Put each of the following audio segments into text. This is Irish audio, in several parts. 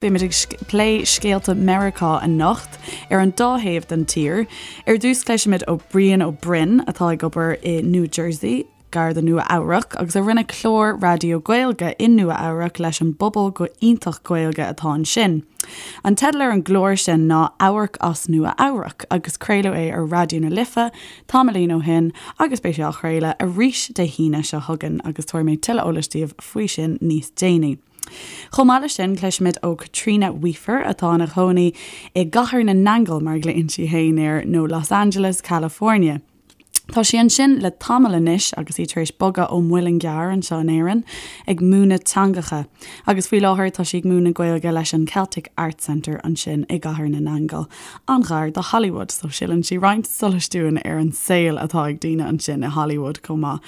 Beimid ag plé scéalta Meiriceá anocht, ar an dá thaobh den tír. Ar dtús cloisfimid ó Brian Ó Broin, atá ag obair i New Jersey, gar do Nua Eabhrac, agus a rinne clár raidió Gaeilge i Nua Eabhrac leis an bpobal go iontach Gaeilge atá ansin. An teideal ar an gclár sin ná Amharc as Nua Eabhrac agus craoladh é ar Raidió na Life tamaillín ó shin agus beidh sé á chraoladh arís Dé hAoine seo chugainn agus tabharfaidh mé tuilleadh eolais daoibh faoi sin níos déanaí. Chomh maith leis sin, cloisfimid ó Caitríona Weafer, atá ina cónaí i gCathair na nAingeal, mar a ghlaonn sí féin air, nó Los Angeles, California. Tá sí ansin le tamall anois agus í tar éis bogadh ó Mhuileann gCearr anseo in Éirinn, ag múineadh teangacha. Agus faoi láthair tá sí ag múineadh Gaeilge leis an Celtic Arts Centre ansin i gCathair na nAingeal, an-ghar do Hollywood, so sileann sí roinnt solais dúinn ar an saol atá ag daoine ansin i Hollywood chomh maith.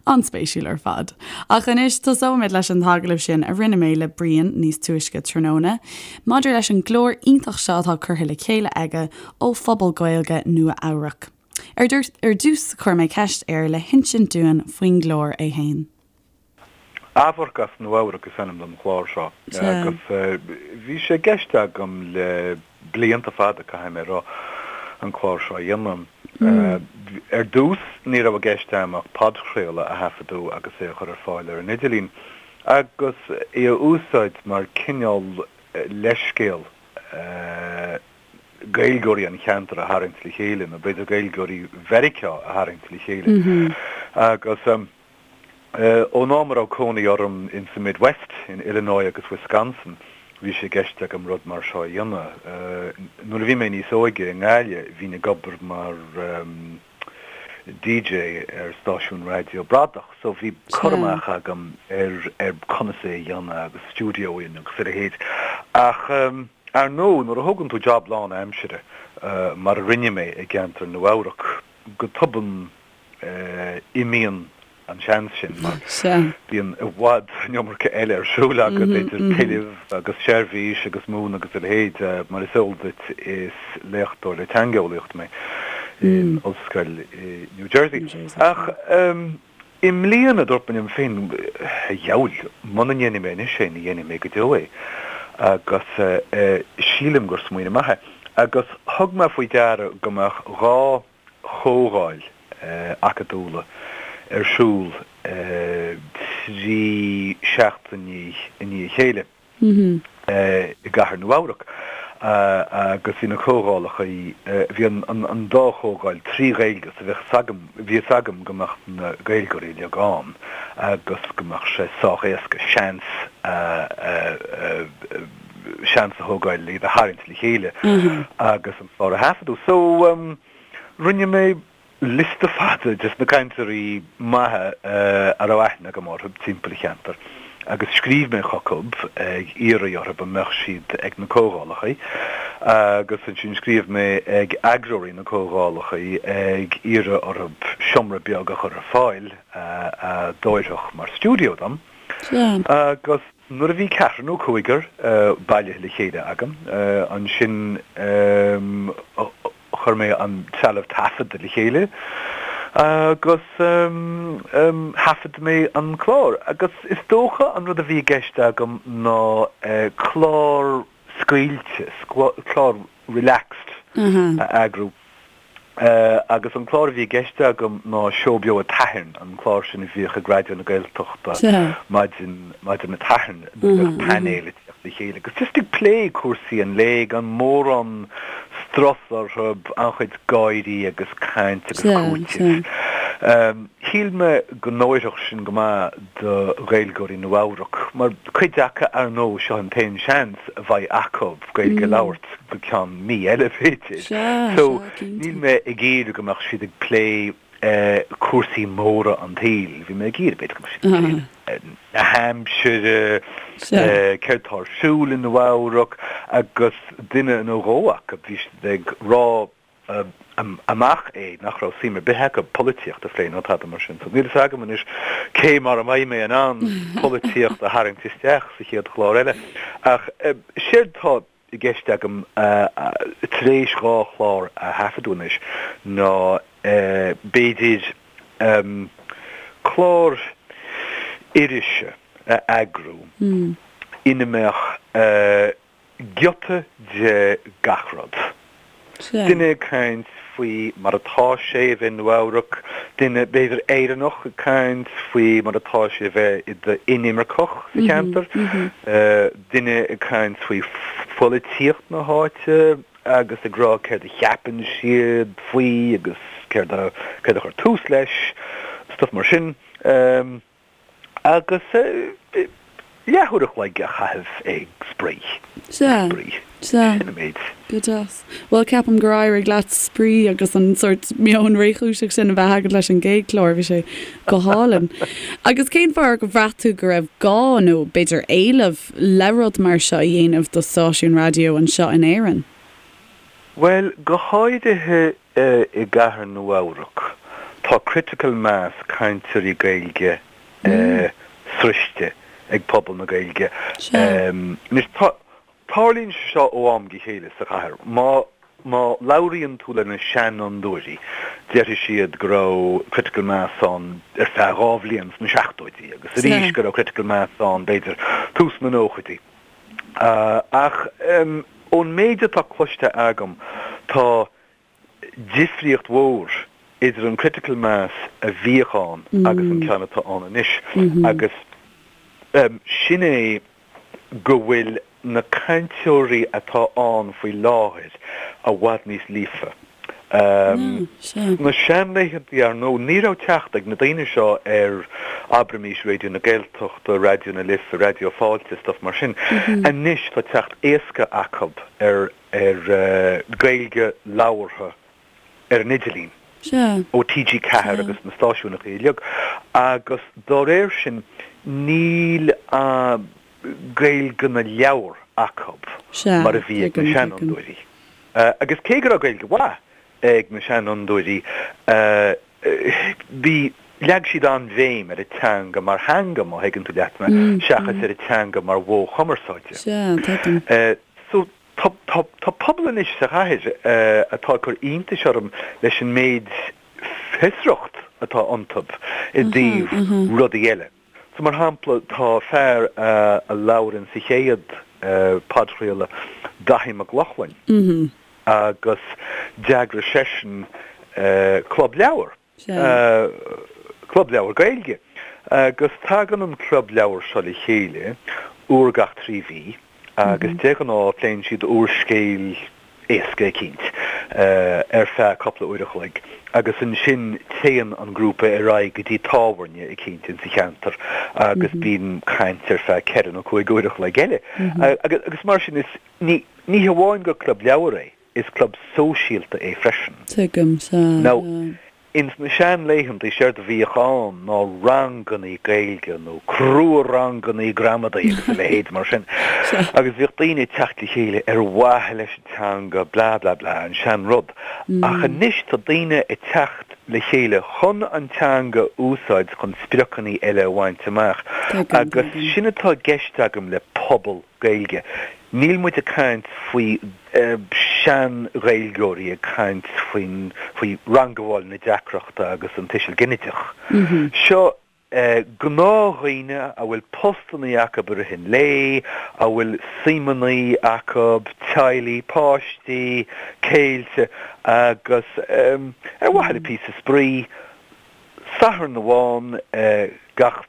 An-spéisiúil ar fad. Ach anois, tosóimid leis an t-agallamh sin a rinne mé le Brian níos túisce tráthnóna, maidir leis an gclár iontach seo atá curtha le chéile aige ó phobal Gaeilge Nua Eabhrac. Ar dtús, chuir mé ceist air le hinsint dúinn faoin gclár é fhéin. Amharc as Nua Eabhrac is ainm don chlár seo agus bhí sé i gceist agam le blianta fada, caithfidh mé a rá, an clár seo a dhéanamh. Ar dtús, ní raibh i gceist agam ach podchraoladh a thaifeadadh agus é a chur ar fáil ar an idirlíon, agus é a úsáid mar cineál leithscéal Gaeilgeoirí an cheantair a tharraingt le chéile, nó b'fhéidir Gaeilgeoirí Mheiriceá a tharraingt le chéile. Agus. Ón am a raibh cónaí orm in sa Midwest, in Illinois agus Wisconsin, bhí sé i gceist agam rud mar seo a dhéanamh. Nuair a bhí mé níos óige i nGaillimh, bhínn ag obair mar DJ ar stáisiún raidió bradach, so bhí cur amach agam ar ar conas é a dhéanamh agus stiúideo agus a leithéid. Ach ar ndóigh, nuair a thógann tú job lán-aimsire, mar a rinne mé i gceantar Nua-Eabhrac, go tobann imíonn an seans sin mar bíonn i bhfad an iomarca eile ar siúl agat, idir tuilleamh agus seirbhís agus múineadh agus a leithéid. Mar is eol duit, is léachtóir le teangeolaíocht mé in ollscoil i New Jersey. Ach i mbliana, dúirt mé liom féin, a dheabhail, muna ndéanfaidh mé anois é, ní dhéanfaidh mé go deo é. Agus sílim gur smaoineamh maith é. Agus thug mé faoi deara go mbeadh 2 chomhdháil acadúla ar siúl 3 seachtainí i ndiaidh a chéile i gcathair Nua-Eabhrac agus bhí na comhdhálacha, bhí an dá chomhdháil 3 Ghaeilge so bhí fhios agam go mbeadh na Gaeilgeoirí uilig ann agus go mbeadh sé sách éasca seans a seans a thógáil iad a tharraingt le chéile agus an clár a thaifeadadh. So, rinne mé liosta fada des na cainteoirí maithe a raibh aithne agam orthu timpeall an cheantair agus scríobh mé chucu ag iarraidh orthu an mbeadh siad ag na comhdhálacha agus ansin scríobh mé ag eagróirí na comhdhálacha ag iarraidh orthu seomra beag a chur ar fáil a d'oirfeadh mar stiúideo dom agus Nuair a bhí ceathrar nó cúigear bailithe le chéile agam, ansin chuir mé an trealamh taifeadta le chéile agus thaifead mé an clár. Agus is dócha an rud a bhí i gceist agam ná clár scaoilte, clár relaxed a eagrú. Agus an clár a bhí i gceist agam ná Seó Beo an tSathairn, an clár sin a bhíodh ag Raidió na Gaeltachta maidin maidin an tSathairn nuair a bheadh painéal ag teacht le chéile agus just ag plé cúrsaí an lae gan mórán strus orthu, an-chuid gáirí agus caint agus cúiteamh. Shíl mé go n-oirfeadh sin go maith do Ghaeilgeoirí Nua-Eabhrac, mar cuid acu, ar ndóigh, seo an t-aon seans a bheidh acu Gaeilge a labhairt go ceann mí eile, b'fhéidir. So, níl mé ag iarraidh go mbeadh siad ag plé cúrsaí móra an tsaoil. Bhí mé ag iarraidh, b'fhéidir, go mbeadh siad ag plé na haimsire, céard tá ar siúl i Nua-Eabhrac, agus duine nó dhó acu, bhí siad ag rá amach é nach raibh suim ar bith acu polaitíocht a phlé ná tada mar sin. So níl fhios agam anois cé mar a mbeidh mé in ann polaitíocht a tharraingt isteach sa chéad chlár eile. Ach séard tá i gceist agam tar éis 2 chlár a thaifeadadh anois ná b'fhéidir clár irise a eagrú ina mbeadh. Giota de gach rud. Duine ag caint faoi mar atá sé a bheith i Nua-Eabhrac, duine, b'fhéidir Éireannach, ag caint faoi mar atá sé a bheith i d'inimirceach sa cheantar, duine ag caint faoi pholaitíocht na háite agus ag rá céard a cheapann siad faoi agus céard a céard a chuir tús leis, stuff mar sin. Agus leathuair a chloig a chaitheamh ag spraoi. Sea. Sea. Sin an méid. Go deas. Bhuel, ceapaim gur éirigh leat spraoi agus an sórt meon réchúiseach sin a bheith agat leis an gcéad chlár. Bhí sé go hálainn. Agus cén fáth ar bhraith tú go raibh gá nó b'fhéidir éileamh le rud mar seo a dhéanamh do stáisiún raidió anseo in Éirinn? Bhuel, go háirithe I gcathair Nua-Eabhrac, tá critical mass cainteoirí Gaeilge sroichte ag pobal na Gaeilge. Anois, tarlaíonn sé seo ó am go chéile sa chathair. Má má labhraíonn tú le na seanfhondúirí, déarfaidh siad go raibh critical mass ann ar feadh 2 bhliain sna seachtóidí agus arís go raibh critical mass ann b'fhéidir tús na nóchaidí. Ach ón méid atá cloiste agam, tá difríocht mhór idir an critical mass a bhíodh ann agus an ceann atá ann anois agus sin é go bhfuil na cainteoirí atá ann faoi láthair i bhfad níos líofa. Sna seanlaethantaí, ar ndóigh, ní raibh teacht ag na daoine seo ar, abraimis, Raidió na Gaeltachta, Raidió na Life, Raidió Fáilte, stuff mar sin. Anois tá teacht éasca acu ar ar Gaeilge labhartha ar an idirlíon ó TG4 agus na stáisiúnachaí uilig agus dá réir sin níl Gaeilge na leabhar acu mar a bhí ag na seanfhondúirí. Agus cé go raibh Gaeilge mhaith ag na seanfhondúirí bhí, leag siad an-bhéim ar an teanga mar theanga, má thuigeann tú leat mé, seachas ar an teanga mar mhodh chumarsáide. Sea, tuigim. So, tá, tá, tá pobal anois sa chathair atá ag cur iontais orm leis an méid fiosracht atá iontu i dtaobh rudaí eile. So, mar shampla, tá fear a labhair sa chéad podchraoladh, Daithí Mac Lochlainn, agus d'eagraigh seisean club leabhar, club leabhar Gaeilge, agus tagann an club leabhar seo le chéile uair gach 3 mhí agus de ghnáth pléann siad úrscéal éasca eicínt ar feadh cúpla uair a chloig agus ansin téann an grúpa ar aghaidh go dtí tábhairne eicínt insa cheantar agus bíonn caint ar feadh ceithre nó cúig uair a chloig eile. Agus mar sin is, ní ní hamháin gur club leabhar é, is club sóisialta é freisin. Tuigim, sea. Now, Ins na seanlaethantaí séard a bhíodh ann ná rangannaí Gaeilge nó crua-rangannaí gramadaí agus a leithéid mar sin. Agus bhíodh daoine ag teacht le chéile ar mhaithe leis an teanga blah blah blah, an sean-rud. Ach anois tá daoine ag teacht le chéile chun an teanga a úsáid chun spriocannaí eile a bhaint amach. Agus sin atá i gceist agam le pobal. Gaeilge. Níl muid ag caint faoi sean-Ghaeilgeoirí ag caint faoin, faoi rangabháil na deacrachta agus an tuiseal ginideach. Seo gnáthdhaoine a bhfuil postannaí acu i rith an lae, a bhfuil suimeannaí acu, teaghlaigh, páistí, céilte agus ar mhaithe le píosa spraoi, Satharn amháin gach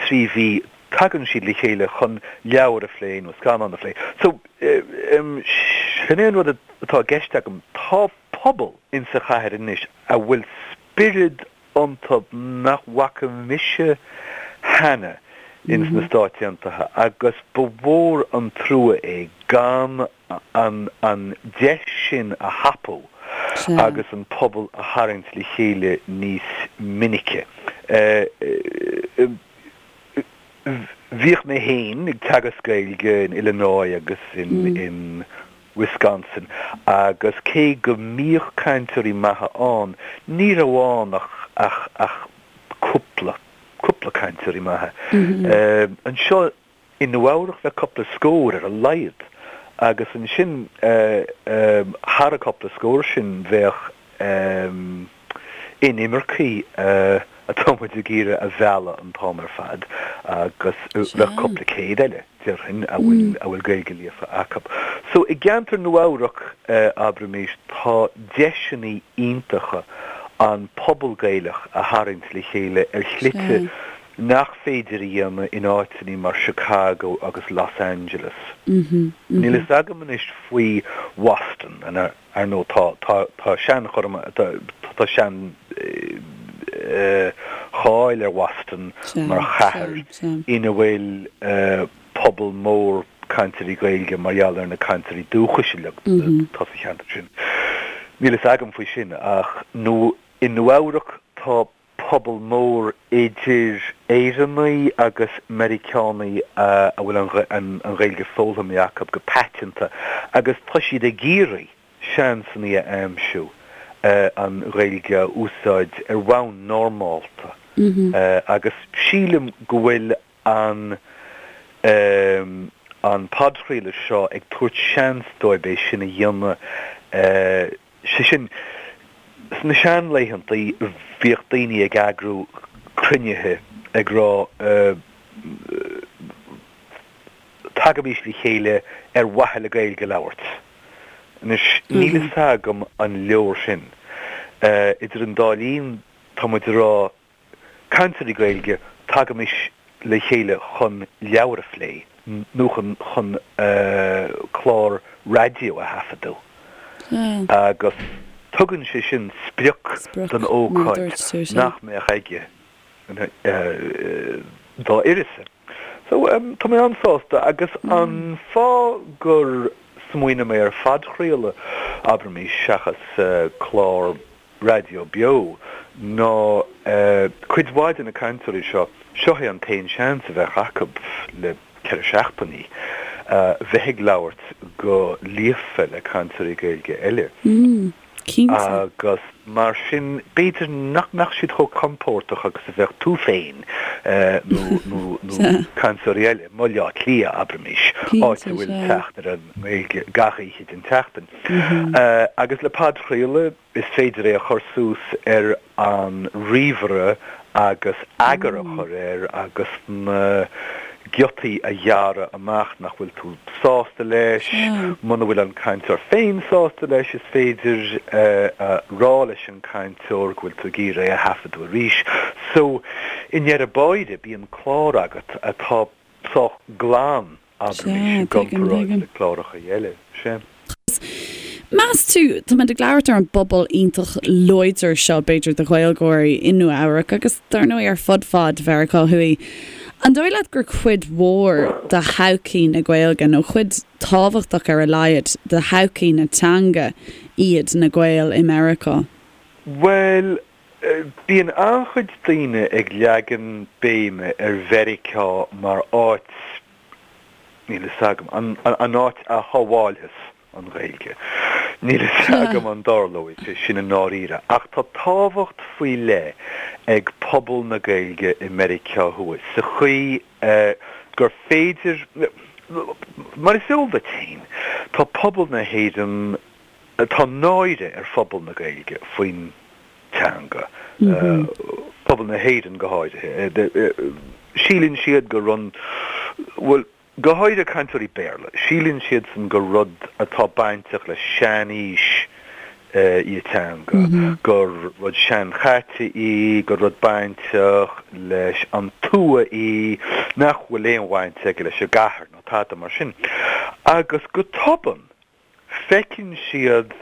3 mhí tagann siad le chéile chun leabhar a phlé nó scannán a phlé. So, sin é an rud atá i gceist agam, tá pobal insa chathair anois a bhfuil spiorad iontu nach bhfaca mise cheana ins na Stáit Aontaithe agus ba mhór an trua é gan an an deis sin a thapú agus an pobal a tharraingt le chéile níos minice. Bhíodh mé féin ag teagasc Gaeilge in Illinois agus in Wisconsin agus cé go mbíodh cainteoirí maithe ann, ní raibh ann ach ach ach cúpla, cúpla cainteoirí maithe. Anseo I Nua-Eabhrac bheadh cúpla scór ar a laghad agus ansin thar an cúpla scór sin bheadh inimircigh atá muid ag iarraidh a mhealladh an t-am ar fad agus bheadh cúpla céad eile, déarfainn, a bhfuil a bhfuil Gaeilge líofa acu. So i gceantar Nua Eabhrac, abraimis, tá deiseanna iontacha an pobal Gaelach a tharraingt le chéile ar shlite nach féidir a dhéanamh in áiteanna mar Chicago agus Los Angeles. Níl fhios agam anois faoi Bhoston, ar ndóigh tá tá tá seanchur tá tá sean cháil ar Bhoston mar chathair ina bhfuil pobal mór cainteoirí Gaeilge mar gheall ar na cainteoirí dúchais uilig atá sa cheantar sin. Níl fhios agam faoi sin ach nó i Nua Eabhrac tá pobal mór idir Éireannaigh agus Meiriceánaigh a bhfuil an Ghaeilge foghlamtha acu go paiteanta agus tá siad ag iarraidh seansanna a aimsiú an Ghaeilge a úsáid ar bhonn normálta agus sílim go bhfuil an an podchraoladh seo ag tabhairt seans dóibh é sin a dhéanamh, sé sin, sna seanlaethantaí bhíodh daoine ag eagrú cruinnithe ag rá tagaimís le chéile ar mhaithe le Gaeilge a labhairt. Anois, níl fhios agam an leor sin. Idir an dá linn, tá muid ag rá Cainteoirí Gaeilge, tagaimis le chéile chun leabhar a phlé nó chun chun clár raidió a thaifeadadh agus tugann sé sin sprioc don ócáid nach mbeadh aige dá uireasa. So, tá mé an-sásta agus an fáth gur smaoinigh mé ar phodchraoladh, abraimis, seachas clár raidió beo ná cuid mhaith de na cainteoirí seo, seo é an t-aon seans a bheadh acu le ceithre seachtainí bheith ag labhairt go líofa le cainteoirí Gaeilge eile. Agus mar sin, b'fhéidir nach mbeadh siad chomh compordach agus a bheadh tú féin nó cainteoirí eile i mBaile Átha Cliath, abraimis, áit a bhfuil teacht ar an nGaeilge gach oíche den tseachtain. Agus le podchraoladh, is féidir é a chur suas ar an ríomhaire agus eagar a chur air agus na giotaí a ghearradh amach nach bhfuil tú sásta leis. Muna bhfuil an cainteoir féin sásta leis, is féidir a rá leis an gcainteoir go bhfuil tú ag iarraidh é a thaifeadadh arís. So, i ndeireadh báire, bíonn clár agat atá sách glan. Abraimis, i gcomparáid le cláracha eile. Sea. Meas tú, táimid ag labhairt ar an bpobal iontach láidir seo, b'fhéidir, de Ghaeilgeoirí i Nua Eabhrac agus, dar ndóigh, ar fud fad Mheiriceá Thuaidh. An dóigh leat gur cuid mhór de thodhchaí na Gaeilge, nó cuid tábhachtach ar a laghad de thodhchaí na teanga iad na Gaeil i Meiriceá? Bhuel, Bíonn an-chuid daoine ag leagan béime ar Mheiriceá mar áit, níl fhios agam, an áit a shábháilfeas an Ghaeilge. Níl fhios agam an dtarlóidh sé sin i ndáiríre, ach tá tábhacht faoi leith ag pobal na Gaeilge i Meiriceá Thuaidh sa chaoi gur féidir, mar is eol duit féin, tá pobal na hÉireann, Tá náire ar phobal na Gaeilge faoin teanga, pobal na hÉireann go háirithe. Síleann siad gur rud, bhuel, go háirithe cainteoirí Béarla, síleann siadsan gur rud atá bainteach le sean-aois í an teanga, gur rud seanchaite í, gur rud bainteach leis an tuath í, nach bhfuil aon bhaint aige leis an gcathair nó tada mar sin. Agus go tobann, feiceann siad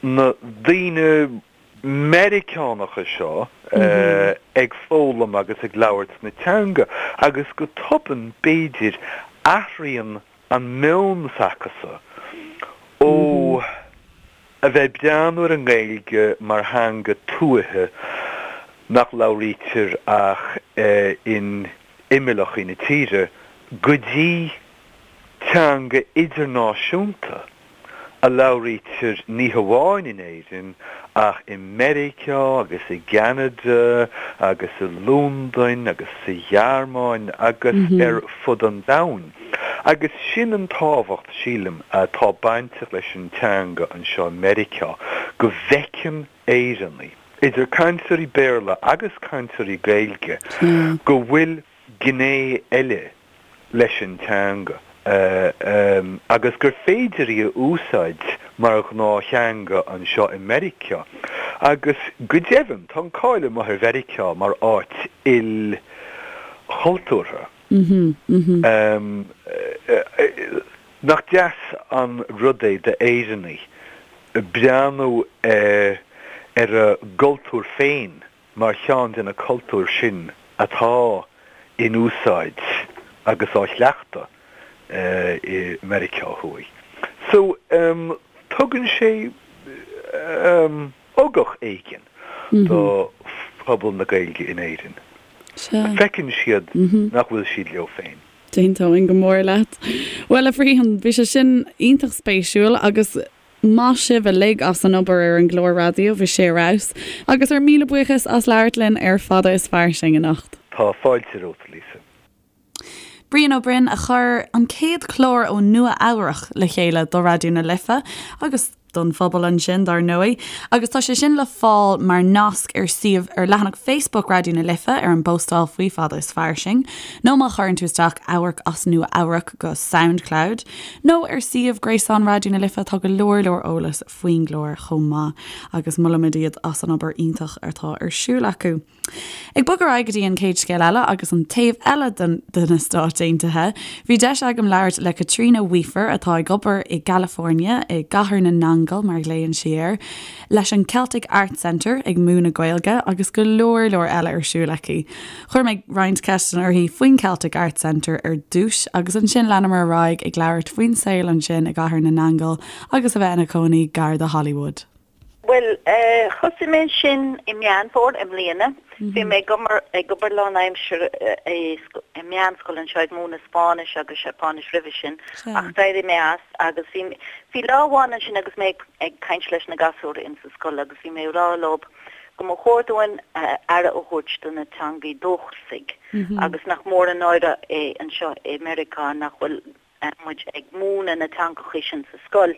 na daoine Meiriceánacha seo ag foghlaim agus ag labhairt na teanga agus go tobann, b'fhéidir, athraíonn an meon s'acusan ó a bheith ag breathnú ar an nGaeilge mar theanga tuaithe nach labhraítear ach in imeallachaí na tíre go dtí teanga idirnáisiúnta a labhraítear ní hamháin in Éirinn ach i Meiriceá agus i gCeanada agus i Londain agus sa Ghearmáin agus ar fud an domhain. Agus sin an tábhacht, sílim, atá bainteach leis an teanga anseo i Meiriceá, go bhfeiceann Éireannaigh, idir cainteoirí Béarla agus cainteoirí Gaeilge, go bhfuil gné eile leis an teanga. Agus gur féidir í a úsáid mar ghnáth-theanga anseo i Meiriceá. Agus go deimhin, tá an cáil amuigh ar Mheiriceá mar áit ilchultúrtha. Nach deas an rud é d'Éireannaigh breathnú ar a gcultúr féin mar cheann de na cultúir sin atá in úsáid agus á chleachtadh i Meiriceá Thuaidh. So, tugann sé ugach éigin do phobal na Gaeilge in Éirinn. Feiceann siad nach bhfuil siad leo féin. D'aontóinn go mór leat. Bhuel, a Bhriain, bhí sé sin iontach spéisiúil agus maith sibh uilig as an obair ar an gclár raidió, bhí sé ar fheabhas. Agus ár míle buíochas as labhairt linn ar Fada is Fairsing anocht. Tá fáilte romhat, Lisa. Brian Ó Broin a chuir an chéad chlár ó Nua Eabhrach le chéile do Raidió na Life agus don phobal ansin, dar ndóigh, agus tá sé sin le fáil mar nasc ar suíomh ar leathanach Facebook Raidió na Life ar an bpóstáil faoi Fada is Fairsing, nó má chuireann tú isteach Amharc as Nua Eabhrac go Soundcloud, nó ar suíomh gréasáin Raidió na Life tá go leor leor eolas faoin gclár chomh maith agus molaimid iad as an obair iontach atá ar siúl acu. Ag bogadh ar aghaidh go dtí an chéad scéal eile agus an taobh eile de na Stáit Aontaithe, bhí deis agam labhairt le Caitríona Weafer atá ag obair i gCalifornia, i gCathair na nAingeal mar a ghlaonn sí air, leis an Celtic Arts Centre ag múineadh Gaeilge agus go leor leor eile ar siúl aici. Chuir mé roinnt ceisteanna uirthi faoin Celtic Arts Centre ar dtús agus ansin leanamar ar aghaidh ag labhairt faoin saol ansin i gCathair na nAingeal agus a bheith ina cónaí gar do Hollywood. Bhuel, thosaigh mé ansin i Meán Fómhair i mbliana. Bhí mé ag obair, ag obair lánaimseartha i meánscoil anseo ag múineadh Spáinnis agus Seapáinis roimhe sin ach d'éirigh mé as agus bhí, bhí lá amháin ansin agus mé ag caint leis na gasúir in sa scoil agus bhí mé ag rá leo go mba chóir dúinn aire a thabhairt do na teangaí dúchasaigh agus nach mór an náire é anseo i Meiriceá nach bhfuil muid ag múineadh na teangachaí sin sa scoil.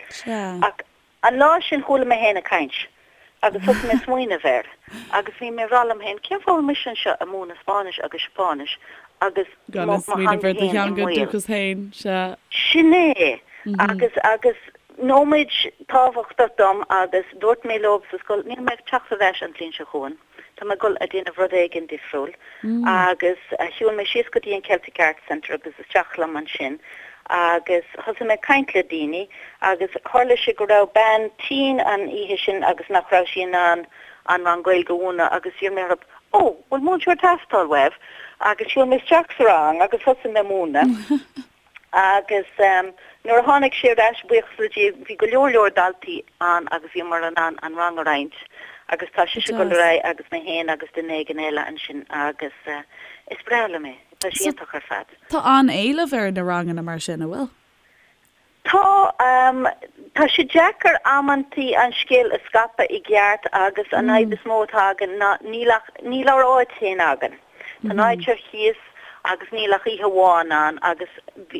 Ach An lá sin chuala mé féin ag caint agus thosaigh mé ag smaoineamh air agus bhí mé ag rá liom féin, cén fáth a bhfuil mise anseo ag múineadh Spáinnis agus Seapáinis agus Gan mo ag smaoineamh theanga ar do féin i theanga mbaol. dúchas féin, sea. Sin é! Agus, agus nóiméad tábhachtach dom agus dúirt mé leo sa scoil, níl mé ag teacht ar ais an bhliain seo chugainn. Tá mé ag dul a déanamh rud éigin difriúil agus shiúil mé síos go dtí an Celtic Arts Centre agus isteach liom ansin agus thosaigh mé ag caint le daoine agus tharla sé go raibh bean tinn an oíche sin agus nach raibh sí in ann an rang Gaeilge a mhúineadh agus d'iarr mé orthu Ó, bhfuil múinteoir ag teastáil uaibh? Agus shiúil mé isteach sa rang agus thosaigh mé ag múineadh. Agus nuair a tháinig sí ar ais, buíochas le Dia, bhí go leor leor daltaí ann agus bhíomar in ann an rang a roinnt agus tá sise ag dul ar aghaidh agus mé féin agus duine éigin eile ansin agus is breá liom é, tá sé iontach ar fad. Tá an-éileamh ar na ranganna mar sin, an bhfuil? Tá, tá sé deacair amantaí an scéal a scaipeadh i gceart agus an fhadhb is mó atá againn ná níl ach, níl ár áit féin againn. Tá an áit ar cíos agus níl ach oíche amháin ann agus bhí,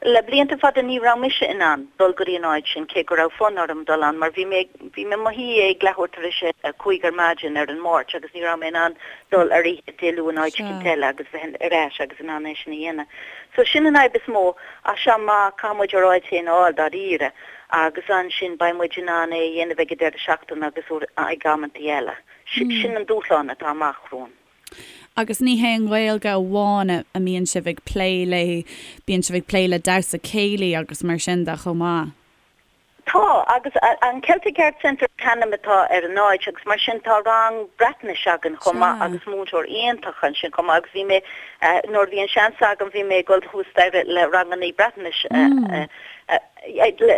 le blianta fada ní raibh mise in ann dul go dtí an áit sin cé go raibh fonn orm dul ann mar bhí mé, bhí mé i mo shuí ag leathuair tar éis a 5 ar maidin ar an Máirt agus ní raibh mé in ann dul ar oíche Dé Luain áit éicint eile agus bheith ar ais agus in ann é sin a dhéanamh. So sin an fhadhb is mó ach sea má caithfidh muid ár áit féin a fháil dáiríre agus ansin beidh muid in ann é a dhéanamh ag an deireadh seachtaine agus ag amantaí eile. Sin an dúshlán atá amach romhainn. Agus ní hé an Ghaeilge amháin a mbíonn sibh ag plé léi, bíonn sibh ag plé le damhsa céilí agus mar sin de chomh maith. Tá, agus an Celtic Arts Centre an t-ainm atá ar an áit agus mar sin tá rang Breatnais againn chomh maith agus múinteoir iontach ansin chomh maith agus bhí mé, nuair a bhí an seans agam bhí mé ag dul thuas staighre le rangannaí Breatnais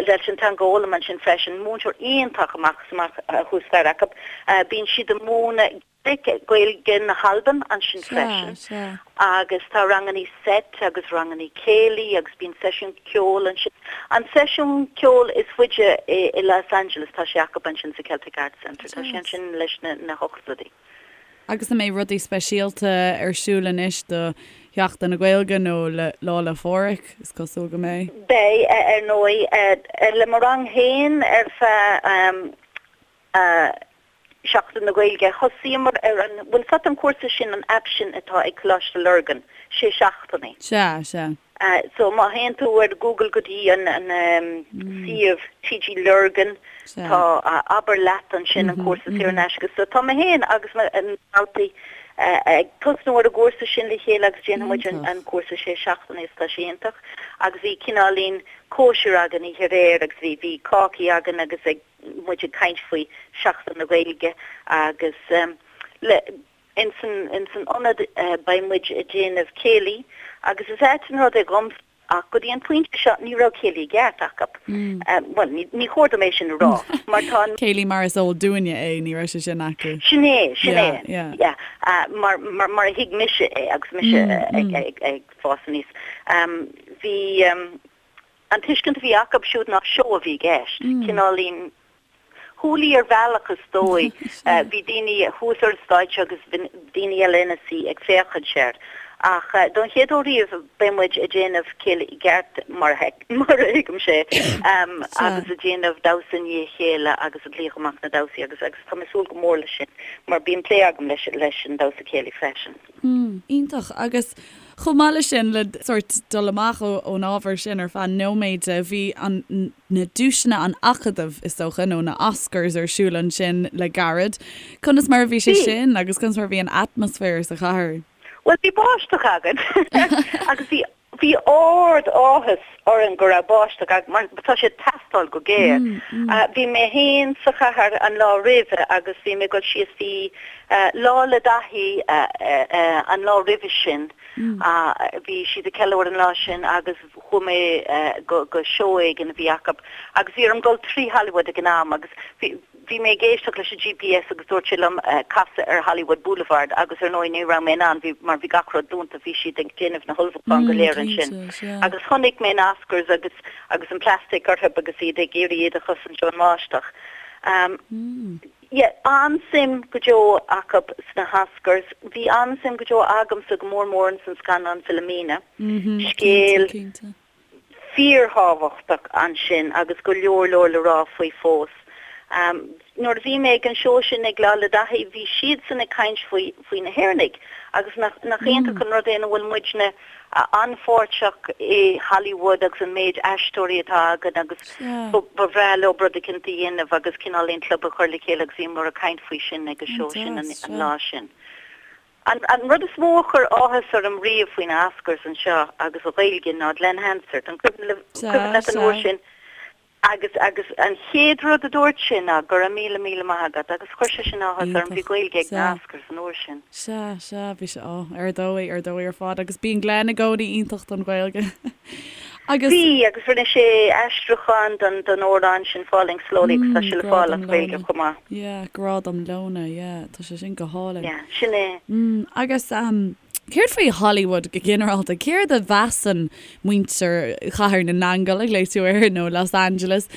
leis an teanga a fhoghlaim ansin freisin, múinteoir iontach amach is amach thuas staighre acu. Bíonn siad ag múineadh. Gaeilge na hAlban ansin freisin agus tá rangannaí seit agus rangannaí céilí agus bíonn seisiún ceoil ansin. An seisiún ceoil is faide i Los Angeles tá sé acu ansin sa Celtic Arts Centre. Tá sé ansin leis na hochtóidí. Agus an mbeidh rudaí speisialta ar siúl anois do Sheachtain na Gaeilge nó le Lá 'le Phádraig? Is cosúil go mbeidh. Beidh, ar ndóigh. Le mo rang féin ar feadh Seachtain na Gaeilge. Thosaíomar ar an, bhfuil 's agat an cúrsa sin, an aip sin atá ag Coláiste Lurgan. sé seachtainí. Sea, sea. So má théann tú ar Google go dtí an suíomh TG Lurgan, tá Abair Leat ansin, an cúrsa saor in aisce. So tá mé féin agus na daltaí ag tosnú ar an gcúrsa sin le chéile agus déanfaidh muid an cúrsa sé seachtainí agus tá sé iontach. Agus bhí cineáilín cóisir againn oíche aréir agus bhí bhí cácaí againn agus ag muid ag caint faoi Seachtain na Gaeilge agus le ins an ins an ionad beidh muid ag déanamh céilí agus is ait an rud é dhomsa ach go dtí an pointe seo ní raibh céilí i gceart acu. Bhuel ní ní chóir dom é sin a rá mar tá an. Céilí mar is eol dúinne é ní raibh sé sin acu. Sin é, sin é. Yeah, yeah. Mar mar mar a thuig mise é agus mise ag ag ag fás aníos. Bhí an tuiscint a bhí acu siúd ná seó a bhí i gceist, cineáilín hoolie ar bhealach is dóigh. Bhí daoine thuas ar an stáitse agus bhí daoine eile ina suí ag féachaint air. Ach don chéad uair riamh beidh muid ag déanamh céilí i gceart mar a thuigimse é agus ag déanamh damhsa i ndiaidh a chéile agus ag glaoch amach na damhsaí agus agus tá mé ag súil go mór leis sin mar bíonn plé agam leis leis an damhsa céilí freisin. Iontach. Agus chomh maith leis sin, le sórt dul amach ón ábhar sin ar feadh nóiméid, bhí an, na duaiseanna an Acadaimh, is dócha, nó na Oscars ar siúl ansin le gairid. Conas mar a bhí sé sin agus conas mar a bhí an atmaisféar sa chathair? Bhuel, bhí báisteach againn agus bhí Bhí ard áthas orainn go raibh báisteach againn mar tá sé ag teastáil go géar. Bhí mé féin sa chathair an lá roimhe agus bhí mé ag dul síos, bhí Lá 'le Daithí an lá roimhe sin, bhí siad ag ceiliúradh an lá sin agus chuaigh mé go seó éigin a bhí acu agus bhí orm dul trí Hollywood ag an am agus bhí Bhí mé ag éisteacht leis an GPS agus dúirt sé liom casadh ar Hollywood Boulevard agus ar ndóigh ní raibh mé in ann, bhí, mar bhí gach rud dúnta, bhí siad ag déanamh na hullmhúcháin go léir ansin. Agus chonaic mé na Oscars agus, agus an plastic orthu agus iad ag iarraidh iad a chosaint ón mbáisteach. Yeah, an-suim go deo acu sna hOscars. Bhí an-suim go deo agamsa go mór mór ins an scannán Philomena. Scéal. fíorthábhachtach ansin agus go leor leor le rá faoi fós. Nuair a bhí mé ag an seó sin ag Lá 'le Daithí bhí siadsan ag caint faoi faoi na hÉireannaigh agus nach nach iontach an rud é nach bhfuil muidne an-pháirteach i Hollywood agus an méid aisteoirí atá againn agus ba bhreá leo rud eicínt a dhéanamh agus cineáilín club a chur le chéile agus bhíomar ag caint faoi sin ag an seó sin an lá sin. An rud is mó a chuir áthas orm riamh faoi na Oscars anseo agus an Ghaeilge ná Glen Hansard. An cuimhin leat an uair sin? Agus agus an chéad rud a dúirt sé ná go raibh míle míle maith agat agus chuir sé sin áthas orm. Bhí Gaeilge ag na Oscars an uair sin. Sea, sea, bhí sé, ó, ar dóigh, ar dóigh ar fad agus bíonn Glen i gcónaí iontach don Ghaeilge. Agus. Bhí, agus rinne sé aistriúchán don don amhrán sin Falling Slowly agus tá sé le fáil as Gaeilge chomh maith. Yeah, Grá dom Leona, yeah, tá sé sin go hálainn. Yeah, sin é. Mm, agus um, céard faoi Hollywood go ginearálta? Céard a mheasann muintir Chathair na nAingeal, a ghlaoigh tú air, nó Los Angeles?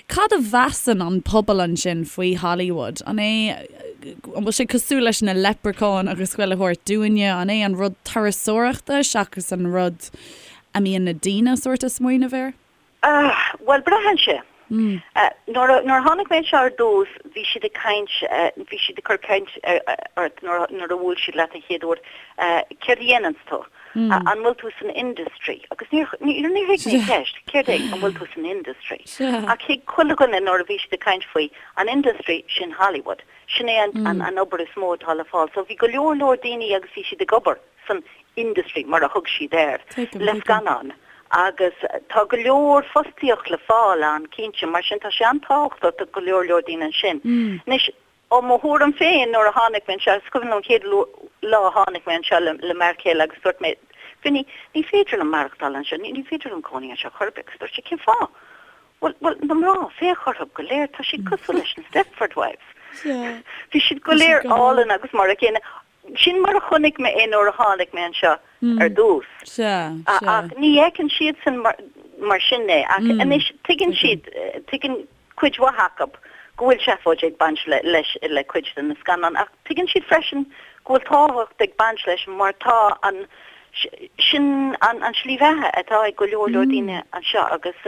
Cad a mheasann an pobal ansin faoi Hollywood? An é, an bhfuil sé cosúil leis na leipreacháin agus chuile shórt dúinne? An é an rud turasóireachta seachas an rud a mbíonn na daoine sórt ag smaoineamh air? Ah, bhuel, braitheann sé. Nuair a, nuair a tháinig mé anseo ar dtús, bhí siad ag caint, bhí siad ag cur caint ort nuair, nuair a bhuail siad leat an chéad uair, céard a dhéananns tú? An bhfuil tú san industry? Agus níor, níor, níor thuig mé an cheist, céard é, an bhfuil tú san industry? Ach thuig chuile dhuine nuair a bhí siad ag caint faoi an industry, sin Hollywood. Sin é an, an, an obair is mó atá le fáil. So bhí go leor, leor daoine agus bhí siad ag obair. san industry, mar a thug siad air, le scannáin agus tá go leor fostaíocht le fáil ann, cinnte, mar sin tá sé an-tábhachtach do go leor leor daoine ansin. Anois, ó mo thuairim féin, nuair a tháinig mé anseo, is cuimhin liom an chéad lá a tháinig mé anseo le m'fhear céile agus dúirt mé, Vinny, ní féidir liom maireachtáil anseo, ní féidir liom cónaí anseo chor ar bith agus dúirt sé, cén fáth? Bhuel, bhuel, na mná, féach orthu go léir, tá siad cosúil leis na Stepford Wives. Bhí siad go léir álainn agus mar a chéile. Sin mar a chonaic mé é nuair a tháinig mé anseo ar dtús. Ach ní fheiceann siadsan mar sin é. Ach anois tuigeann siad, tuigeann cuid mhaith acu go bhfuil seafóid ag baint leis, le cuid de na scannáin. Ach tuigeann siad freisin go bhfuil tábhacht ag baint leis mar tá an, sin an tslí bheatha atá ag go leor leor daoine anseo agus.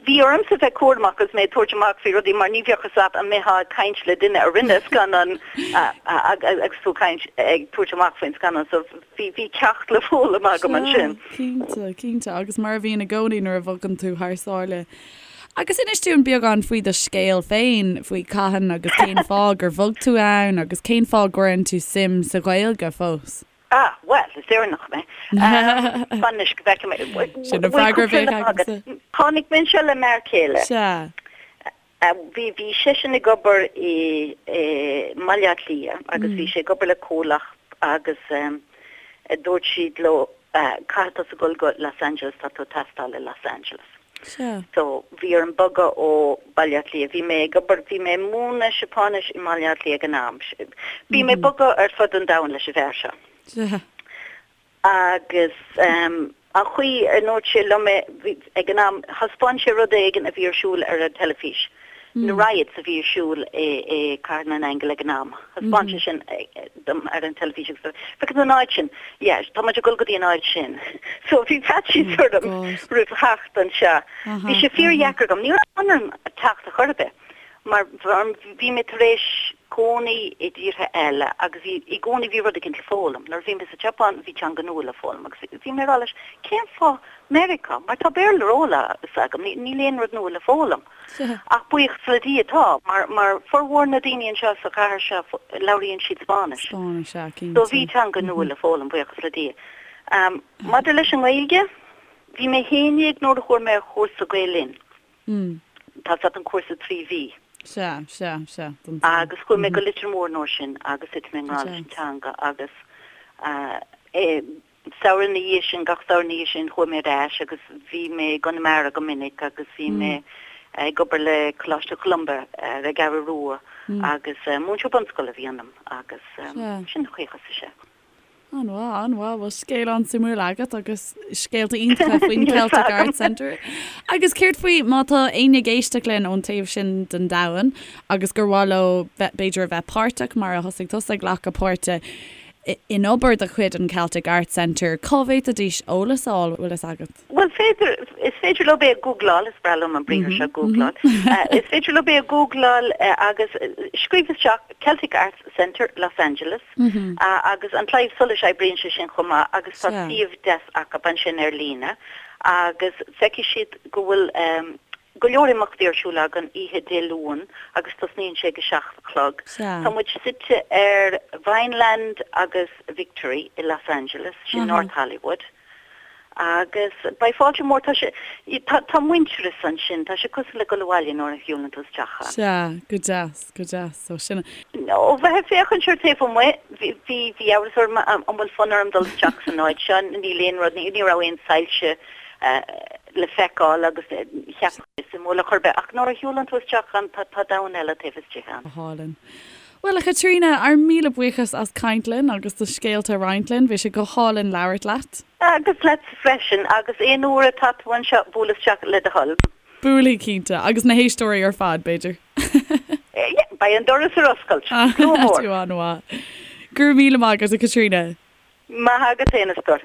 Bhí ormsa bheith cúramach agus mé ag tabhairt amach faoi rudaí mar ní bheadh fhios agat an mbeifeá ag caint le duine a rinne scannán agus tú ag caint, ag tabhairt amach faoin scannán so bhí, bhí ceacht le foghlaim agam ansin. Sea, cinnte, cinnte agus mar a bhíonn i gcónaí nuair a bhogann tú thar sáile. Agus inis dúinn beagán faoi do scéal féin, faoi cathain agus cén fáth gur bhog tú ann agus cén fáth a gcuireann tú suim sa Ghaeilge fós. Ah, bhuel, is Éireannach mé. Fan anois go bhfeicfidh mé. Sin an freagra a bheadh agamsa. Tháinig mé anseo le m'fhear céile. Sea. Bhí, bhí seisean ag obair i, i mBaile Átha Cliath agus bhí sé ag obair le comhlacht agus dúirt siad leo, caithfidh tusa dul go Los Angeles, tá tú ag teastáil i Los Angeles. Sea. So, bhí orm bogadh ó Baile Átha Cliath. Bhí mé ag obair, bhí mé ag múineadh Seapáinis i mBaile Átha Cliath ag an am. Bhí mé ag bogadh ar fud an domhain leis an bhfear seo. Sea. Agus an chaoi a ndúirt sé liom é, bhí, ag an am, thaispeáin sé rud éigin a bhí ar siúl ar an teilifís. Na riots a bhí ar siúl i Cathair na nAingeal ag an am. Thaispeáin sé sin dom ar an teilifís agus dúirt, Feiceann tú an áit sin? Yeah, tá muid ag dul go dtí an áit sin. So bhí faitíos orm roimh theacht anseo. Bhí sé fíordheacair agam. Ní raibh fonn orm teacht ar chor ar bith mar bhí mé tar éis cónaí i dtíortha eile agus bhí i gcónaí bhí rud éicint le foghlaim. Nuair a bhí mé sa tSeapáin bhí teanga nua le foghlaim agus bhí mé ag rá leis, cén fáth Meiriceá? Mar tá Béarla ar eolas agam, níl aon rud nua le foghlaim. Ach buíochas le Dia tá, mar mar formhór na daoine anseo sa chathair seo labhraíonn siad Spáinnis. Spáinnis, sea, cinnte. So bhí teanga nua le foghlaim, buíochas le Dia. Maidir leis an nGaeilge, bhí mé 11 nuair a chuaigh mé ar chúrsa Gael Linn. Tá fhios agat an cúrsa 3 mhí. Sea, sea, sea, don tsaol. Agus chuaigh mé go Leitir Móir an uair sin agus thit mé i ngrá leis an teanga agus eh, Samhradh ina dhiaidh sin, gach samhradh ina dhiaidh sin, chuaigh mé ar ais agus bhí mé i gConamara go minic agus bhí mé ag obair le Coláiste Cholumba ar an gCeathrú Rua agus múinteoir bunscoile a bhí ionam agus sin an chaoi a thosaigh sé. An-mhaith, an-mhaith. Bhuel, scéal an-suimiúil agat agus scéalta iontacha faoin Celtic Arts Centre. Agus céard faoi má tá éinne ag éisteacht linn ón taobh sin den domhan agus gur mhaith leo b'fhéidir a bheith páirteach mar a thosaigh tusa ag glacadh páirte in obair de chuid an Celtic Arts Centre, cá bhféadfaidís eolas a fháil, bhfuil fhios agat? Bhuel, féidir, is féidir leo é a ghoogláil, is breá liom an briathar seo, googláil. Is féidir leo é a ghoogláil agus scríobh isteach Celtic Arts Centre, Los Angeles agus an Claidheamh Soluis oibríonn sé sin chomh maith agus tá suíomh deas acu ansin ar líne agus feicfidh siad go bhfuil go leor imeachtaí ar siúl againn oíche Dé Luain agus tosnaíonn sé ag a 7 a chlog. Tá muid suite ar Vineland agus Victory i Los Angeles, sin North Hollywood. Agus beidh fáilte mhór, tá sé, tá, tá muintearas ansin, tá sé cosúil le dul abhaile nuair a shiúlann tú isteach ann. Sea, go deas, go deas. So sin. Ó bheith ag féachaint ar taobh amuigh, bhí, bhí, bhí amhras orm an bhfuil fonn orm dul isteach san áit seo, níl aon rud, ní, ní raibh aon soilse le feiceáil agus cheap mé suimiúil ar chor ar bith ach nuair a shiúlann tú isteach ann tá tá domhan eile taobh istigh ann. Go hálainn. Bhuel, a Chaitríona, ár míle buíochas as caint linn agus do scéalta a roinnt linn. Bhí sé go hálainn labhairt leat. Agus leatsa freisin, agus aon uair atá tú anseo, buail isteach le do thoil. Buailfidh, cinnte. Agus na héisteoirí ar fad, b'fhéidir. Yeah, beidh an doras ar oscailt. Slua mór. Tú an-mhaith. Go raibh míle maith agat, a Chaitríona. Maith agat féin, a stór.